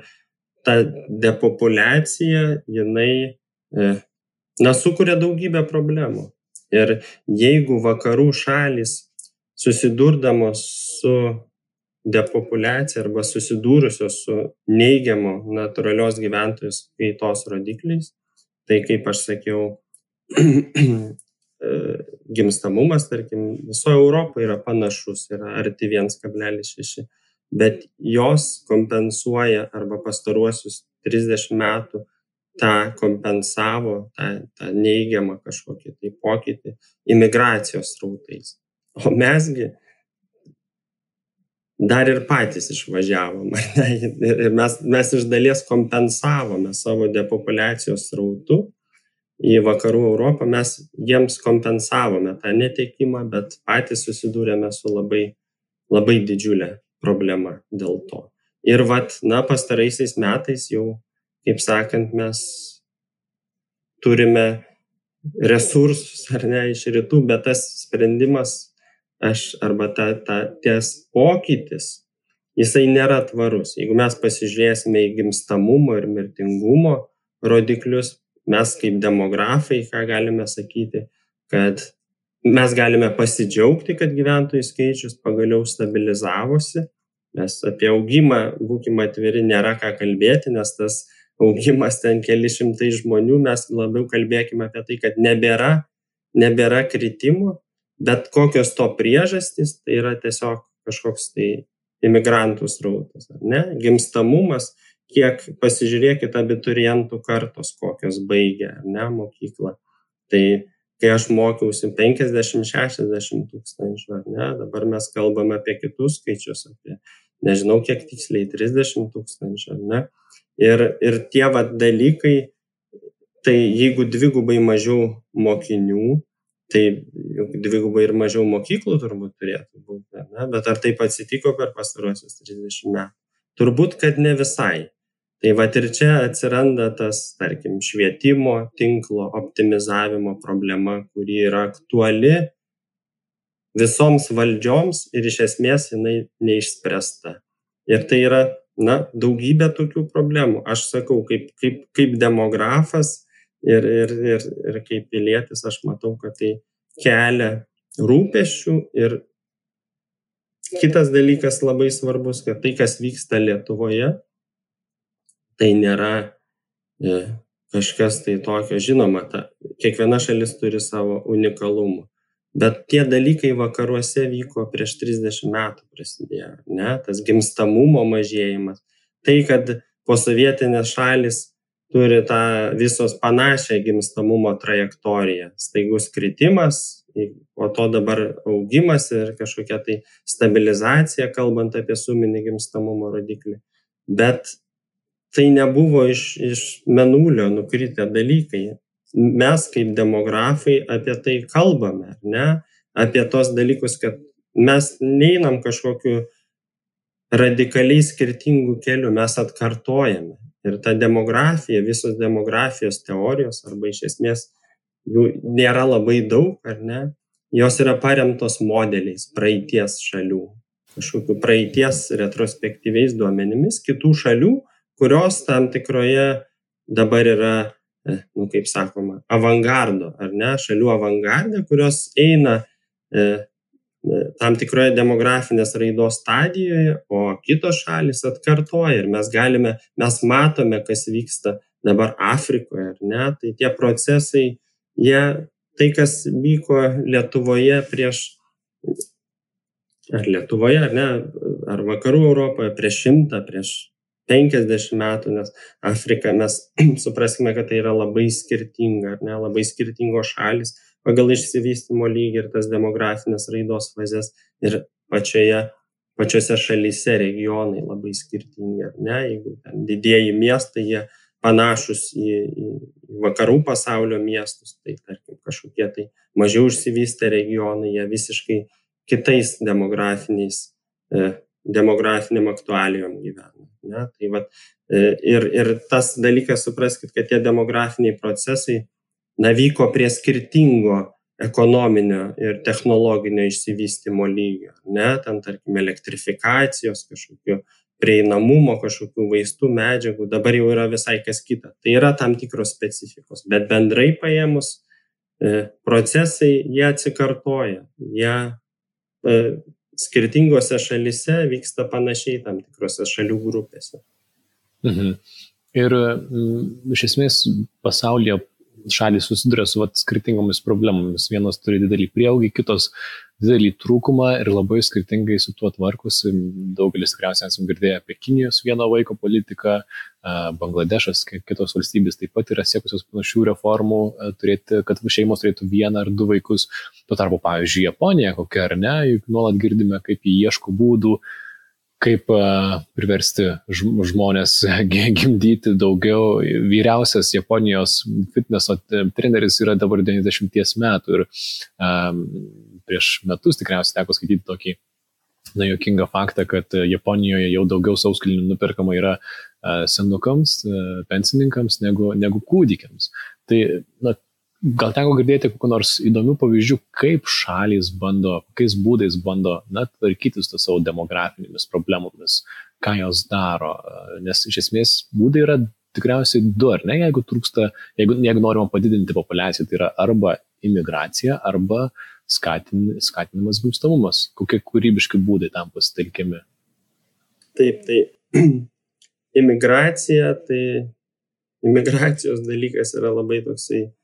ta depopuliacija, jinai sukuria daugybę problemų. Ir jeigu vakarų šalys susidurdamos su depopuliacija arba susidūrusios su neigiamo natūralios gyventojų kaitos rodikliais, tai kaip aš sakiau, gimstamumas, tarkim, visoje Europoje yra panašus, yra arti 1,6, bet jos kompensuoja arba pastaruosius 30 metų tą kompensavo, tą neigiamą kažkokį tai pokytį imigracijos srautais. O mesgi dar ir patys išvažiavom. Ir mes iš dalies kompensavome savo depopuliacijos srautu į vakarų Europą, mes jiems kompensavome tą netekimą, bet patys susidūrėme su labai, labai didžiulė problema dėl to. Ir pastaraisiais metais jau, kaip sakant, mes turime resursus, ar ne, iš rytų, bet tas sprendimas arba ties pokytis, jisai nėra tvarus. Jeigu mes pasižiūrėsime į gimstamumo ir mirtingumo rodiklius, mes kaip demografai, ką galime sakyti, kad mes galime pasidžiaugti, kad gyventojų skaičius pagaliau stabilizavosi. Mes apie augimą, būkime atviri, nėra ką kalbėti, nes tas augimas ten keli šimtai žmonių, mes labiau kalbėkime apie tai, kad nebėra kritimų, bet kokios to priežastys, tai yra tiesiog kažkoks tai imigrantų srautas, ar ne? Gimstamumas, kiek pasižiūrėkite abiturientų kartos, kokios baigia, ar ne, mokyklą. Tai kai aš mokiausi 50-60 tūkstančių, ar ne, dabar mes kalbame apie kitus skaičius, apie nežinau kiek tiksliai, 30 tūkstančių, ar ne? Ir tie dalykai, tai jeigu dvigubai mažiau mokinių, tai dvigubai ir mažiau mokyklų turbūt turėtų būti, ne? Bet ar taip atsitiko per pastaruosius 30 metų? Turbūt, kad ne visai. Tai vat ir čia atsiranda tas, tarkim, švietimo tinklo optimizavimo problema, kuri yra aktuali visoms valdžioms ir iš esmės jinai neišspręsta. Ir tai yra, daugybė tokių problemų. Aš sakau, kaip demografas ir kaip pilietis, aš matau, kad tai kelia rūpesčių. Ir kitas dalykas labai svarbus, kad tai, kas vyksta Lietuvoje, tai nėra kažkas tai tokio. Žinoma, kiekviena šalis turi savo unikalumų. Bet tie dalykai vakaruose vyko prieš 30 metų prasidėjo, ne? Tas gimstamumo mažėjimas. Tai, kad posovietinės šalis turi tą visos panašią gimstamumo trajektoriją. Staigus kritimas, o to dabar augimas ir kažkokia tai stabilizacija, kalbant apie suminį gimstamumo rodiklį. Bet tai nebuvo iš mėnulio nukritę dalykai. Mes kaip demografai apie tai kalbame, ne? Apie tos dalykus, kad mes neinam kažkokiu radikaliai skirtingų kelių, mes atkartojame. Ir ta demografija, visos demografijos teorijos, arba iš esmės jų nėra labai daug, ar ne? Jos yra paremtos modeliais praeities šalių, kažkokiu praeities retrospektyviais duomenimis kitų šalių, kurios tam tikroje dabar yra, kaip sakoma, avangardo, ar ne, šalių avangardė, kurios eina tam tikroje demografinės raidos stadijoje, o kitos šalis atkartoja. Ir mes matome, kas vyksta dabar Afrikoje, ar ne, tai tie procesai, tai, kas vyko Lietuvoje ar ne, ar vakarų Europoje prieš 100, prieš 50 metų, nes Afrika, mes supraskime, kad tai yra labai skirtinga, ar ne, labai skirtingos šalis pagal išsivystymo lygį ir tas demografinės raidos fazes, ir pačiose šalyse regionai labai skirtingi, ar ne, jeigu ten didieji miestai, jie panašus į vakarų pasaulio miestus, tai tarkim kažkokie tai mažiau išsivystę regionai, jie visiškai kitais demografiniam aktualijom gyvena. Ne? Tai vat, ir tas dalykas, supraskit, kad tie demografiniai procesai vyko prie skirtingo ekonominio ir technologinio išsivystymo lygio. Ne? Ten, tarkim, elektrifikacijos, kažkokių prieinamumo, kažkokių vaistų, medžiagų, dabar jau yra visai kas kita. Tai yra tam tikros specifikos, bet bendrai paėmus procesai, jie atsikartoja. Jie skirtingose šalyse vyksta panašiai tam tikrose šalių grupėse. Ir iš esmės pasaulyje šalys susiduria su skirtingomis problemomis. Vienos turi didelį prieaugį, kitos didelį trūkumą ir labai skirtingai su tuo tvarkosi. Daugelis tikriausiai esame girdėję apie Kinijos vieno vaiko politiką, Bangladešas, kitos valstybės taip pat yra siekusios panašių reformų, kad šeimos turėtų 1 ar 2 vaikus. Tuo tarpu, pavyzdžiui, Japonija kokia ar ne, juk nuolat girdime, kaip jie ieško būdų, kaip priversti žmonės gimdyti daugiau. Vyriausias Japonijos fitneso treneris yra dabar 90 metų ir prieš metus tikriausiai teko skaityti tokį juokingą faktą, kad Japonijoje jau daugiau sauskelnių nuperkama yra senukams, pensininkams negu kūdikiams. Tai gal teko girdėti kokių nors įdomių pavyzdžių, kaip šalys kokiais būdais bando tvarkytis su savo demografinėmis problemomis, ką jos daro, nes iš esmės būdai yra tikriausiai 2, ar ne, jeigu norima padidinti populiaciją, tai yra arba imigracija, arba skatinimas gimstamumas. Kokie kūrybiški būdai tam pasitelkiami? Taip, tai imigracijos dalykas yra labai toksai,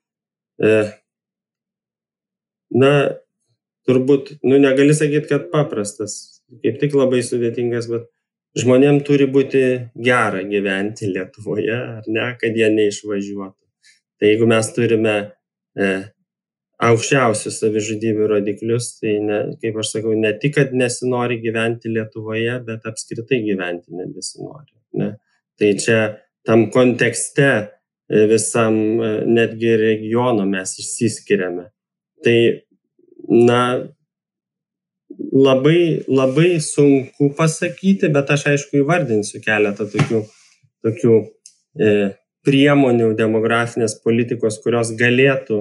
turbūt, negali sakyti, kad paprastas, kaip tik labai sudėtingas, bet žmonėm turi būti gera gyventi Lietuvoje, ar ne, kad jie neišvažiuotų. Tai jeigu mes turime aukščiausius savižudybių rodiklius, tai kaip aš sakau, ne tik, kad nesinori gyventi Lietuvoje, bet apskritai gyventi nebesinori. Ne? Tai čia tam kontekste visam netgi regiono mes išsiskiriame. Tai, labai sunku pasakyti, bet aš aišku įvardinsiu keletą tokių priemonių demografinės politikos, kurios galėtų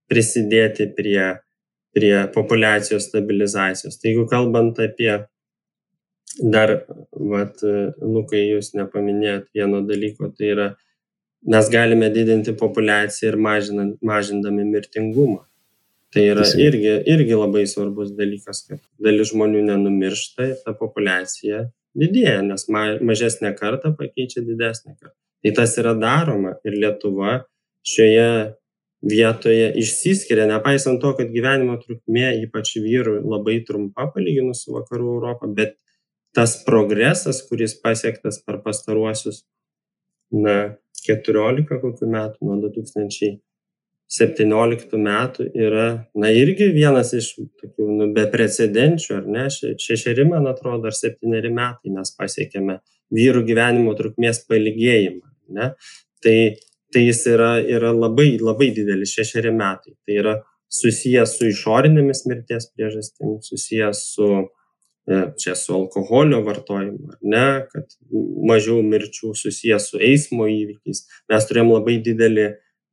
prisidėti prie populiacijos stabilizacijos. Tai jeigu kalbant apie dar, Lukai, jūs nepaminėjot vieno dalyko, tai yra, mes galime didinti populiaciją ir mažindami mirtingumą. Tai yra irgi labai svarbus dalykas, kad dalis žmonių nenumiršta ir ta populiacija didėja, nes mažesnė karta pakeičia didesnę kartą. Tai tas yra daroma ir Lietuva šioje vietoje išsiskiria, nepaisant to, kad gyvenimo trukmė, ypač vyrų, labai trumpa palyginus su vakarų Europą, bet tas progresas, kuris pasiektas per pastaruosius 14 kokių metų, nuo 2017 metų yra, irgi vienas iš tokių beprecedenčių, ar ne, 6, man atrodo, ar 7 metai mes pasiekėme vyrų gyvenimo trukmės pailgėjimą, ne? Tai jis yra labai, labai didelis, 6 metai. Tai yra susijęs su išorinėmis mirties priežastimis, susijęs su alkoholio vartojimu, ar ne, kad mažiau mirčių, susijęs su eismo įvykiais. Mes turėjom labai didelį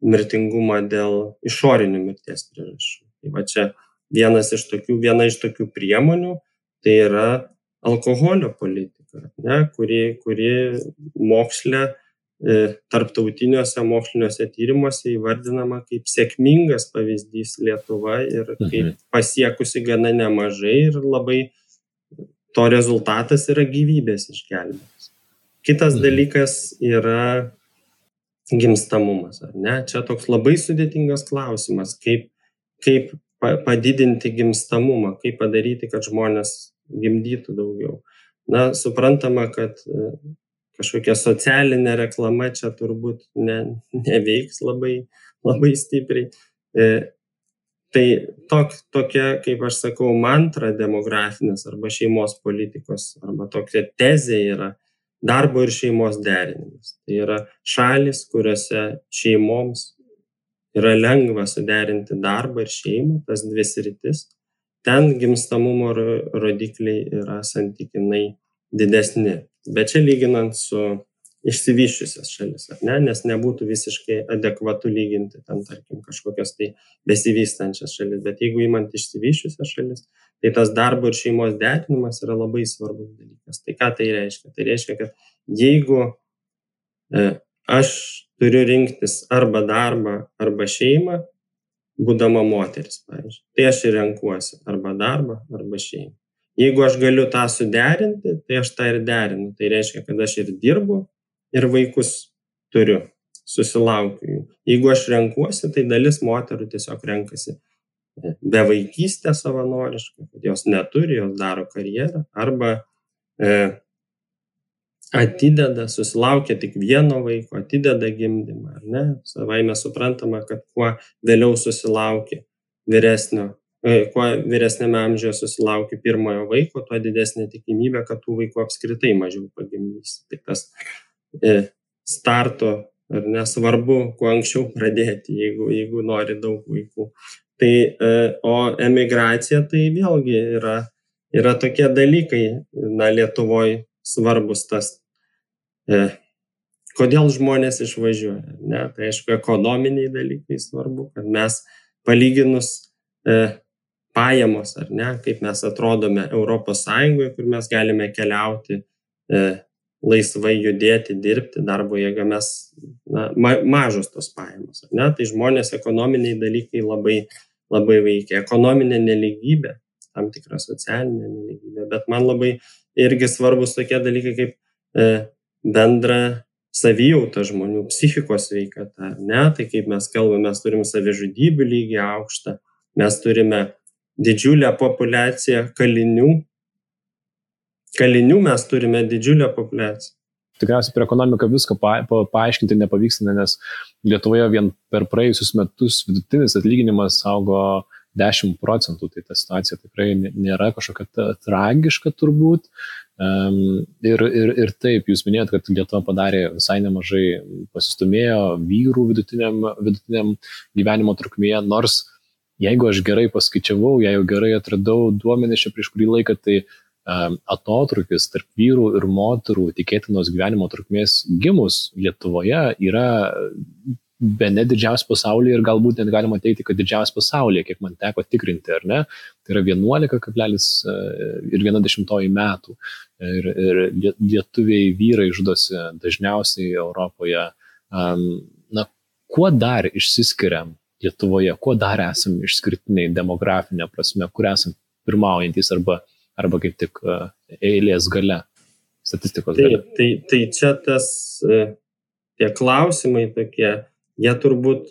mirtingumą dėl išorinių mirties priežasčių. Tai čia viena iš tokių priemonių, tai yra alkoholio politika, ne, kuri moksle, tarptautiniuose moksliniuose tyrimuose įvardinama kaip sėkmingas pavyzdys Lietuva ir kaip pasiekusi gana nemažai ir labai to rezultatas yra gyvybės išgelbėjimas. Kitas dalykas yra gimstamumas, ar ne? Čia toks labai sudėtingas klausimas, kaip padidinti gimstamumą, kaip padaryti, kad žmonės gimdytų daugiau. Suprantama, kad kažkokia socialinė reklama čia turbūt neveiks labai stipriai. Tai tokia, kaip aš sakau, mantra demografinės arba šeimos politikos, arba tokia tezė yra darbo ir šeimos derinimas. Tai yra šalis, kuriuose šeimoms yra lengva suderinti darbą ir šeimą, tas 2 sritis. Ten gimstamumo rodikliai yra santykinai didesni. Bet čia lyginant su išsivysčiusias šalis, ar ne? Nes nebūtų visiškai adekvatu lyginti ten, tarkim, kažkokias tai besivystančias šalis. Bet jeigu imant išsivysčiusias šalis, tai tas darbo ir šeimos derinimas yra labai svarbus dalykas. Tai ką tai reiškia? Tai reiškia, kad jeigu aš turiu rinktis arba darbą, arba šeimą, būdama moteris, pavyzdžiui, tai aš ir renkuosi arba darbą, arba šeimą. Jeigu aš galiu tą suderinti, tai aš tą ir derinu. Tai reiškia, kad aš ir dirbu, ir vaikus turiu, susilaukiu jų. Jeigu aš renkuosi, tai dalis moterų tiesiog renkasi bevaikystę savanoriškai, kad jos neturi, jos daro karjerą, arba atideda, susilaukia tik vieno vaiko, atideda gimdymą, ar ne? Savaime suprantama, kad kuo vėliau susilaukia kuo vyresnėme amžiuje susilaukia pirmojo vaiko, tuo didesnė tikimybė, kad tų vaikų apskritai mažiau pagimdys. Tai tas starto, ar nesvarbu, kuo anksčiau pradėti, jeigu nori daug vaikų. Tai, o emigracija tai vėlgi yra tokie dalykai, Lietuvoje svarbus tas, kodėl žmonės išvažiuoja. Ne? Tai aišku, ekonominiai dalykai svarbu, kad mes palyginus pajamos, ar ne, kaip mes atrodome Europos Sąjungoje, kur mes galime keliauti, laisvai judėti, dirbti, darbo jėga, mes mažos tos pajamos, ar ne, tai žmonės ekonominiai dalykai labai, labai veikia. Ekonominė nelygybė, tam tikra socialinė nelygybė, bet man labai irgi svarbus tokie dalykai kaip bendra savijauta žmonių, psichikos sveikata, ar ne, tai kaip mes kalbame, mes turim savižudybių lygį aukštą, mes turime didžiulę populiaciją kalinių. Kalinių mes turime didžiulę populiaciją. Tikriausiai per ekonomiką viską paaiškinti nepavyksta, nes Lietuvoje vien per praėjusius metus vidutinis atlyginimas augo 10%, tai ta situacija tikrai nėra kažkokia tragiška turbūt. Ir taip, jūs minėjot, kad Lietuva padarė visai nemažai, pasistumėjo vyrų vidutiniam gyvenimo trukmėje, nors jeigu aš gerai paskaičiavau, jeigu gerai atradau duomenis čia prieš kurį laiką, tai atotrukis tarp vyrų ir moterų tikėtinos gyvenimo trukmės gimus Lietuvoje yra bene didžiausias pasaulyje ir galbūt net galima teikti, kad didžiausias pasaulyje, kiek man teko tikrinti, ar ne, tai yra 11,1 metų. Ir lietuviai vyrai žudosi dažniausiai Europoje. Na, kuo dar išsiskiriam Lietuvoje, kuo dar esam išskirtiniai demografinė prasme, kur esam pirmaujantys arba kaip tik eilės gale, statistikos gale? Tai čia tie klausimai tokie, jie turbūt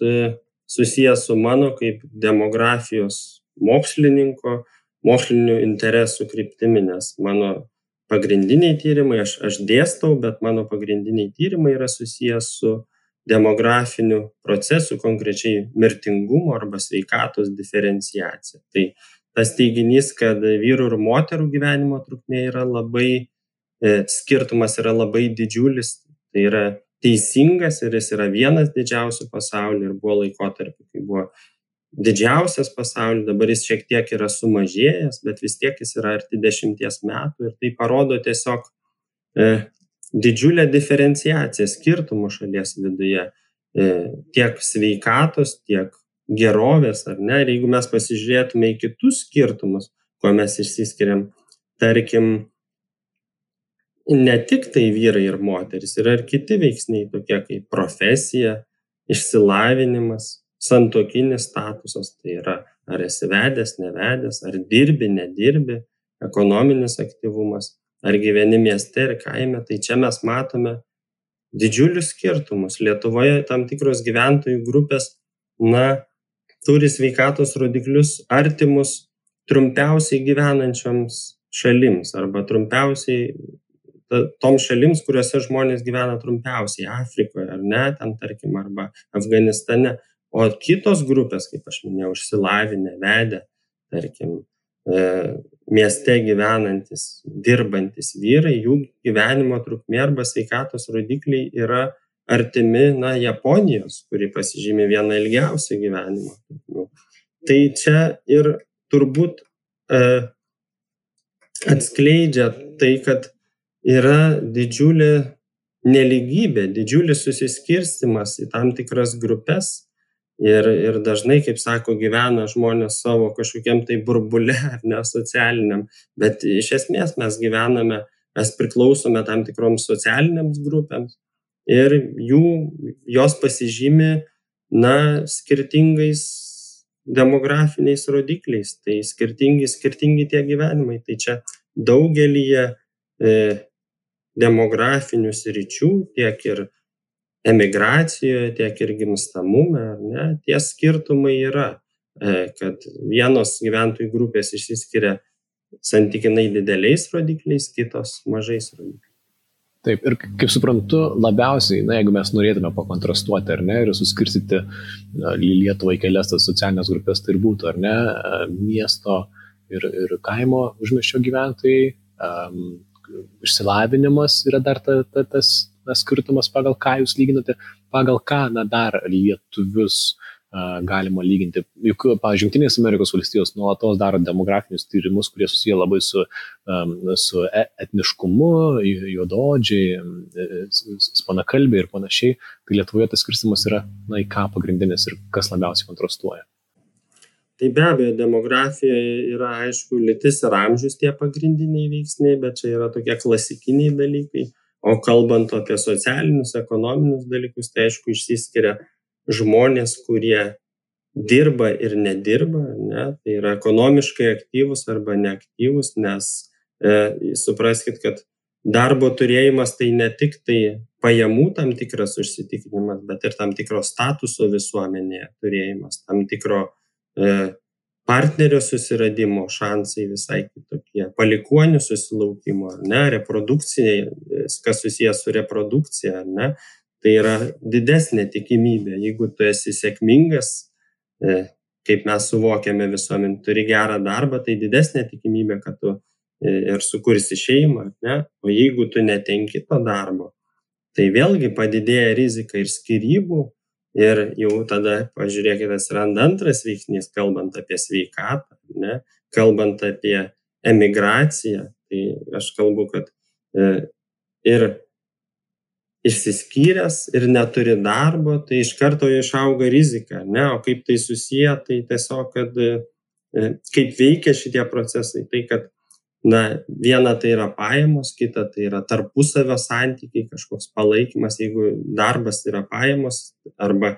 susijęs su mano kaip demografijos mokslinių interesų kryptimi, nes mano pagrindiniai tyrimai, aš dėstau, bet mano pagrindiniai tyrimai yra susijęs su demografiniu procesu, konkrečiai mirtingumo arba sveikatos diferenciacija. Tai tas teiginys, kad vyrų ir moterų gyvenimo trukmė yra skirtumas yra labai didžiulis, tai yra teisingas ir jis yra vienas didžiausių pasaulyje ir buvo laikotarpiu, kai buvo didžiausias pasaulyje, dabar jis šiek tiek yra sumažėjęs, bet vis tiek jis yra arti 10 metų ir tai parodo tiesiog didžiulę diferenciaciją skirtumų šalies viduje, tiek sveikatos, tiek gerovės, ar ne? Ir jeigu mes pasižiūrėtume į kitus skirtumus, kuo mes išsiskiriam, tarkim, ne tik tai vyrai ir moteris, yra ir kiti veiksniai, tokie kaip profesija, išsilavinimas, santuokinis statusas, tai yra ar esi vedęs, nevedęs, ar dirbi, nedirbi, ekonominis aktyvumas, ar gyveni mieste ir kaime, tai čia mes matome didžiulius skirtumus. Lietuvoje tam tikros gyventojų grupės, turi sveikatos rodiklius artimus trumpiausiai gyvenančioms šalims arba trumpiausiai toms šalims, kuriuose žmonės gyvena trumpiausiai, Afrikoje, ar ne, ten tarkim, arba Afganistane. O kitos grupės, kaip aš minėjau, išsilavinę, vedę, tarkim, mieste gyvenantis, dirbantis vyrai, jų gyvenimo trukmė arba sveikatos rodikliai yra artimi, Japonijos, kuri pasižymi vieną ilgiausių gyvenimo trukmių. Tai čia ir turbūt atskleidžia tai, kad yra didžiulė nelygybė, didžiulis susiskirstimas į tam tikras grupės ir dažnai, kaip sako, gyvena žmonės savo kažkokiam tai burbule ar ne socialiniam, bet iš esmės mes gyvename, mes priklausome tam tikroms socialiniams grupėms ir jos pasižymi, skirtingais demografiniais rodikliais, tai skirtingi tie gyvenimai, tai čia daugelyje demografinių sričių, tiek ir emigracijoje, tiek ir gimstamume, ar ne, tie skirtumai yra, kad vienos gyventojų grupės išsiskiria santykinai dideliais rodikliais, kitos mažais rodikliais. Taip, ir kaip suprantu, labiausiai, jeigu mes norėtume pakontrastuoti, ar ne, ir suskirstyti Lietuvą į kelias tas socialinės grupės, tai ir būtų, ar ne, miesto ir kaimo užmiesčio gyventojai, išsilavinimas yra dar tas skirtumas, pagal ką jūs lyginate, pagal ką dar lietuvius galima lyginti. Juk, pavyzdžiui, Jungtinės Amerikos valstijos nuolatos daro demografinius tyrimus, kurie susiję labai su etniškumu, juodaodžiai, ispanakalbiai ir panašiai. Tai Lietuvoje tas skirstymas yra, į ką pagrindinis ir kas labiausiai kontrastuoja. Tai be abejo, demografijoje yra, aišku, lytis ir amžius tie pagrindiniai veiksniai, bet čia yra tokie klasikiniai dalykai. O kalbant apie socialinius, ekonominius dalykus, tai aišku, išsiskiria žmonės, kurie dirba ir nedirba, ne? Tai yra ekonomiškai aktyvus arba neaktyvus, nes supraskit, kad darbo turėjimas tai ne tik tai pajamų tam tikras užsitikrinimas, bet ir tam tikro statuso visuomenėje turėjimas, tam tikro partnerio susiradimo šansai visai kitokie, palikuonių susilaukimo, ar ne, reprodukcijai, kas susijęs su reprodukcija, ar ne, tai yra didesnė tikimybė, jeigu tu esi sėkmingas kaip mes suvokiame visuomenį, turi gerą darbą, tai didesnė tikimybė, kad tu ir sukursi šeimą, ne? O jeigu tu netenki to darbo, tai vėlgi padidėja rizika ir skyrybų, ir jau tada, pažiūrėkite, atsiranda antras veiksnys, kalbant apie sveikatą, ne? Kalbant apie emigraciją, tai aš kalbu, kad ir išsiskyręs ir neturi darbo, tai iš karto išauga rizika, ne? O kaip tai susiję, tai tiesiog, kad kaip veikia šitie procesai, tai kad viena tai yra pajamos, kita tai yra tarpusavio santykiai, kažkoks palaikymas, jeigu darbas yra pajamos arba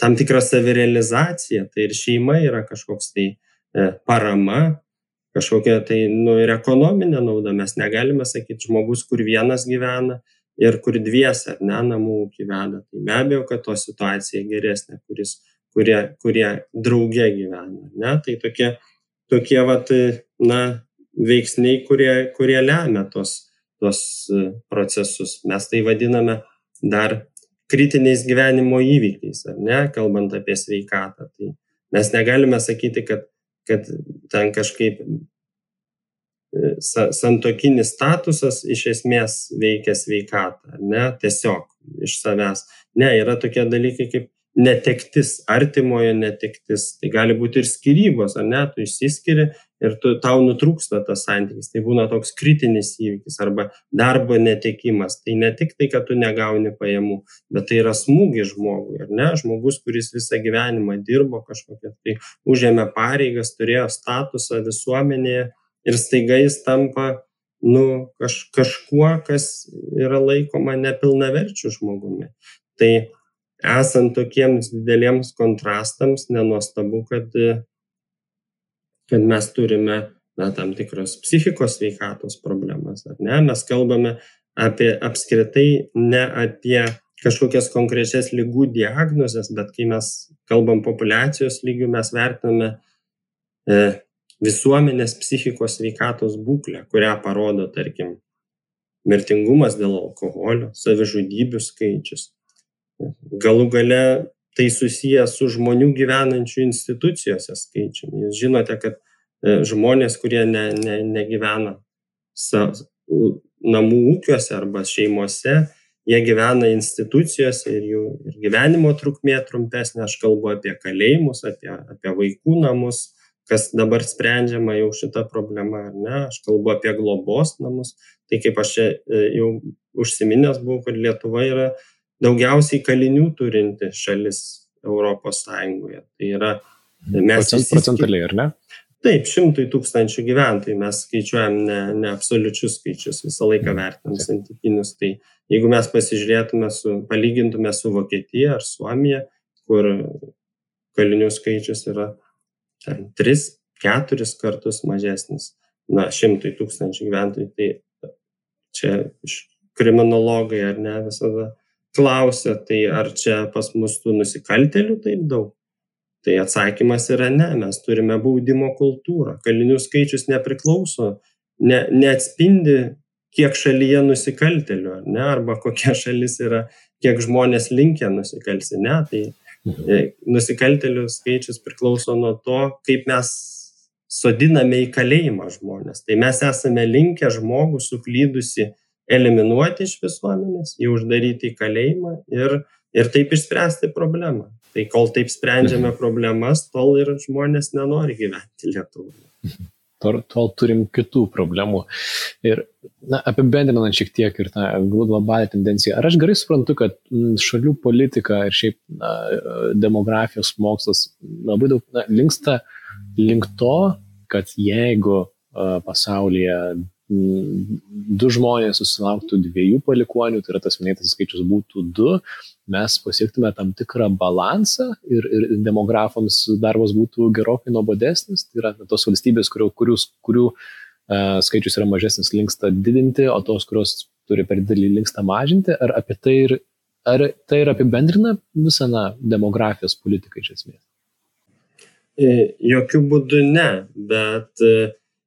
tam tikra savirealizacija, tai ir šeima yra kažkoks tai parama, kažkokia tai ir ekonominė nauda. Mes negalime sakyti žmogus, kur vienas gyvena ir kur dviese, namų ūkį veda. Tai be abejo, kad to situacija geresnė, kurie drauge gyvena, ne? Tai tokie veiksniai, kurie lemia tos procesus. Mes tai vadiname dar kritiniais gyvenimo įvykiais, ar ne, kalbant apie sveikatą. Tai mes negalime sakyti, kad ten kažkaip santuokinis statusas iš esmės veikia sveikatą, ar ne, tiesiog iš savęs. Ne, yra tokie dalykai kaip netektis, artimojo netektis, tai gali būti ir skyrybos, ar ne, tu išsiskiri ir tau nutrūksta tas santykis, tai būna toks kritinis įvykis arba darbo netekimas, tai ne tik tai, kad tu negauni pajamų, bet tai yra smūgis žmogui, ar ne, žmogus, kuris visą gyvenimą dirbo kažkokią, tai užėmė pareigas, turėjo statusą visuomenėje ir staiga jis tampa kažkuo, kas yra laikoma nepilnaverčiu žmogumi. Tai esant tokiems dideliems kontrastams, nenuostabu, kad mes turime tam tikros psichikos sveikatos problemas, ar ne? Mes kalbame apie apskritai ne apie kažkokias konkrečias ligų diagnozes, bet kai mes kalbam populiacijos lygių, mes vertiname visuomenės psichikos sveikatos būklę, kurią parodo, tarkim, mirtingumas dėl alkoholio, savižudybių skaičius. Galų gale tai susiję su žmonių gyvenančių institucijose skaičiumi. Jūs žinote, kad žmonės, kurie negyvena namų ūkiuose arba šeimose, jie gyvena institucijose ir jų gyvenimo trukmė trumpesnė. Aš kalbu apie kalėjimus, apie vaikų namus, kas dabar sprendžiama jau šita problema, ar ne? Aš kalbu apie globos namus. Tai kaip aš jau užsiminęs buvau, kad Lietuva yra daugiausiai kalinių turinti šalis Europos Sąjungoje. Tai yra procentaliai, ar ne? Taip, 100 000 gyventojų. Mes skaičiuojam ne absoliučius skaičius, visą laiką vertinam santykinius. Tai jeigu mes pasižiūrėtume, palygintume su Vokietija ar Suomija, kur kalinių skaičius yra 3-4 kartus mažesnis, 100 000 gyventojų. Tai čia kriminologai, ar ne, visada klausia, tai ar čia pas mus tų nusikaltėlių taip daug? Tai atsakymas yra ne, mes turime baudimo kultūrą. Kalinių skaičius nepriklauso, neatspindi, kiek šalyje nusikaltėlių, ar ne, arba kokia šalis yra, kiek žmonės linkę nusikalsti, ne, tai nusikaltėlių skaičius priklauso nuo to, kaip mes sodiname į kalėjimą žmonės. Tai mes esame linkę žmogų suklydusi eliminuoti iš visuomenės, jį uždaryti į kalėjimą ir taip išspręsti problemą. Tai kol taip sprendžiame problemas, tol ir žmonės nenori gyventi Lietuvoje. Tol turim kitų problemų. Ir apibendrinant šiek tiek ir tą globalią tendenciją, ar aš gerai suprantu, kad šalių politika ir šiaip demografijos mokslas labai daug linksta link to, kad jeigu pasaulyje 2 žmonės susilauktų 2 palikuonių, tai yra tas minėtas skaičius būtų 2, mes pasiektume tam tikrą balansą ir demografams darbas būtų gerokai nuobodesnis. Tai yra tos valstybės, kurių skaičius yra mažesnis, linksta didinti, o tos, kurios turi per didelį, linksta mažinti. Ar tai ir apibendrina visą demografijos politiką iš esmės? Jokių būdų ne, bet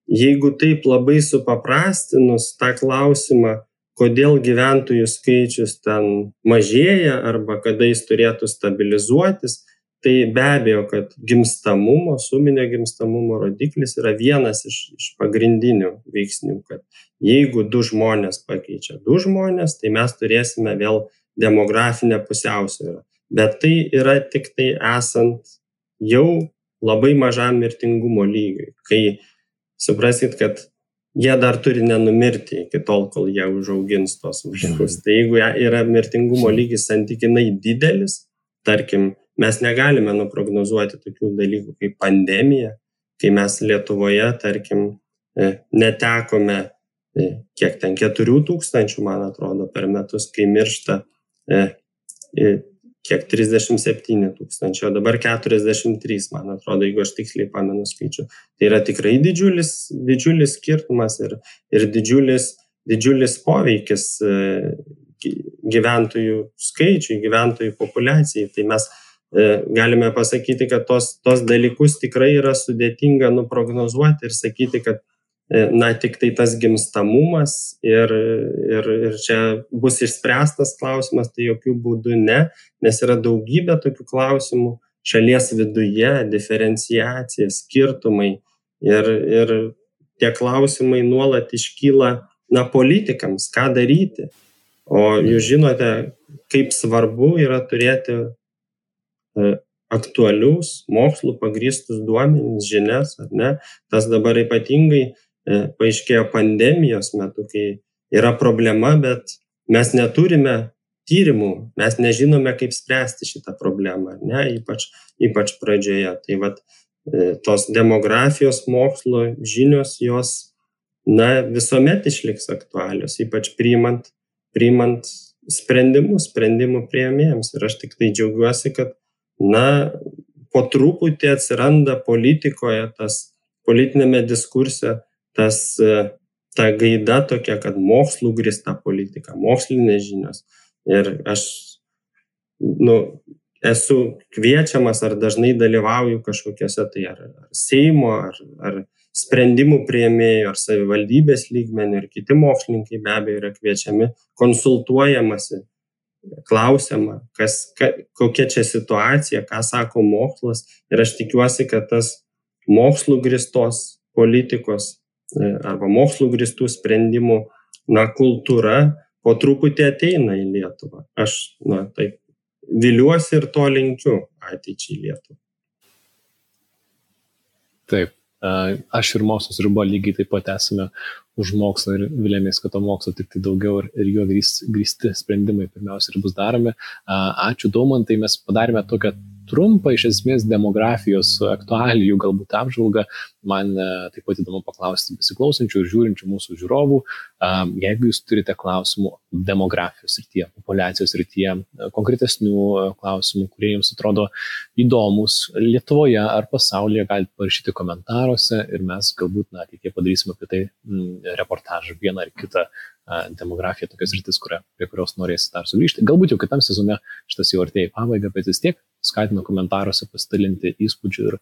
jeigu taip labai supaprastinus tą klausimą, kodėl gyventojų skaičius ten mažėja arba kada jis turėtų stabilizuotis, tai be abejo, kad gimstamumo, suminio gimstamumo rodiklis yra vienas iš pagrindinių veiksnių, kad jeigu 2 žmonės pakeičia 2 žmonės, tai mes turėsime vėl demografinę pusiausvyrą. Bet tai yra tik tai esant jau labai mažam mirtingumo lygiui, kai suprasit, kad jie dar turi nenumirti iki tol, kol jie užaugins tos vaikus. Tai jeigu yra mirtingumo lygis santykinai didelis, tarkim, mes negalime nuprognozuoti tokių dalykų kaip pandemija, kai mes Lietuvoje, tarkim, netekome kiek ten 4,000, man atrodo, per metus, kai miršta kiek 37,000, o dabar 43, man atrodo, jeigu aš tiksliai pamenu skaičių. Tai yra tikrai didžiulis skirtumas ir didžiulis poveikis gyventojų skaičiui, gyventojų populiacijai. Tai mes galime pasakyti, kad tos dalykus tikrai yra sudėtinga nuprognozuoti ir sakyti, kad tik tai tas gimstamumas ir čia bus išspręstas klausimas, tai jokių būdų ne, nes yra daugybė tokių klausimų šalies viduje, diferenciacija, skirtumai ir tie klausimai nuolat iškyla politikams, ką daryti. O jūs žinote, kaip svarbu yra turėti aktualius, mokslų pagrįstus duomenis, žinias, ar ne? Tas dabar ypatingai paaiškėjo pandemijos metu, kai yra problema, bet mes neturime tyrimų, mes nežinome, kaip spręsti šitą problemą, ar ne, ypač pradžioje. Tai tos demografijos mokslo žinios, jos visuomet išliks aktualios, ypač priimant sprendimų priėmėjams. Ir aš tik tai džiaugiuosi, kad po truputį atsiranda politikoje, politinėme diskurse, ta gaida tokia, kad mokslų grįsta politika, mokslinės žinios. Ir aš esu kviečiamas ar dažnai dalyvauju kažkokiuose tai ar Seimo, ar sprendimų priėmėjų, ar savivaldybės lygmenių, ir kiti mokslininkai be abejo yra kviečiami, konsultuojamasi, klausiama, kokia čia situacija, ką sako mokslas. Ir aš tikiuosi, kad tas mokslų grįstos politikos arba mokslų grįstų sprendimų kultūra po truputį ateina į Lietuvą. Aš taip viliuosi ir to linkiu ateičiai Lietuvą. Taip, aš ir mokslas ir buvo lygiai taip pat esame už mokslą ir vilėmės, kad to mokslo tik tai daugiau ir jo grįsti sprendimai pirmiausia ir bus daromi. Ačiū Daumantai, mes padarėme tokią trumpą iš esmės demografijos aktualijų galbūt apžvalgą. Man taip pat įdomu paklausti besiklausančių ir žiūrinčių mūsų žiūrovų, jeigu jūs turite klausimų demografijos srityje, populiacijos srityje, konkretesnių klausimų, kurie jums atrodo įdomus Lietuvoje ar pasaulyje, galite parašyti komentaruose ir mes galbūt ateityje padarysime apie tai reportažą, vieną ar kitą demografija, tokias rytis, prie kurios norėsite dar sugrįžti. Galbūt jau kitam sezone šitas jau artėja į pabaigą, bet vis tiek skatinu komentaruose pasidalinti įspūdžių ir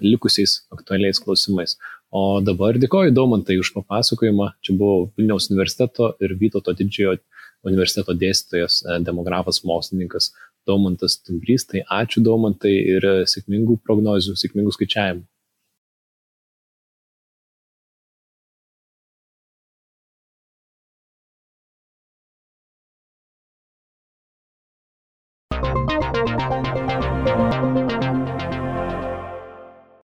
likusiais aktualiais klausimais. O dabar dėkoju Daumantai už papasakojimą. Čia buvo Vilniaus universiteto ir Vytauto Didžiojo universiteto dėstytojas, demografas, mokslininkas Daumantas Stumbrys. Tai ačiū Daumantai ir sėkmingų prognozių, sėkmingų skaičiavimų.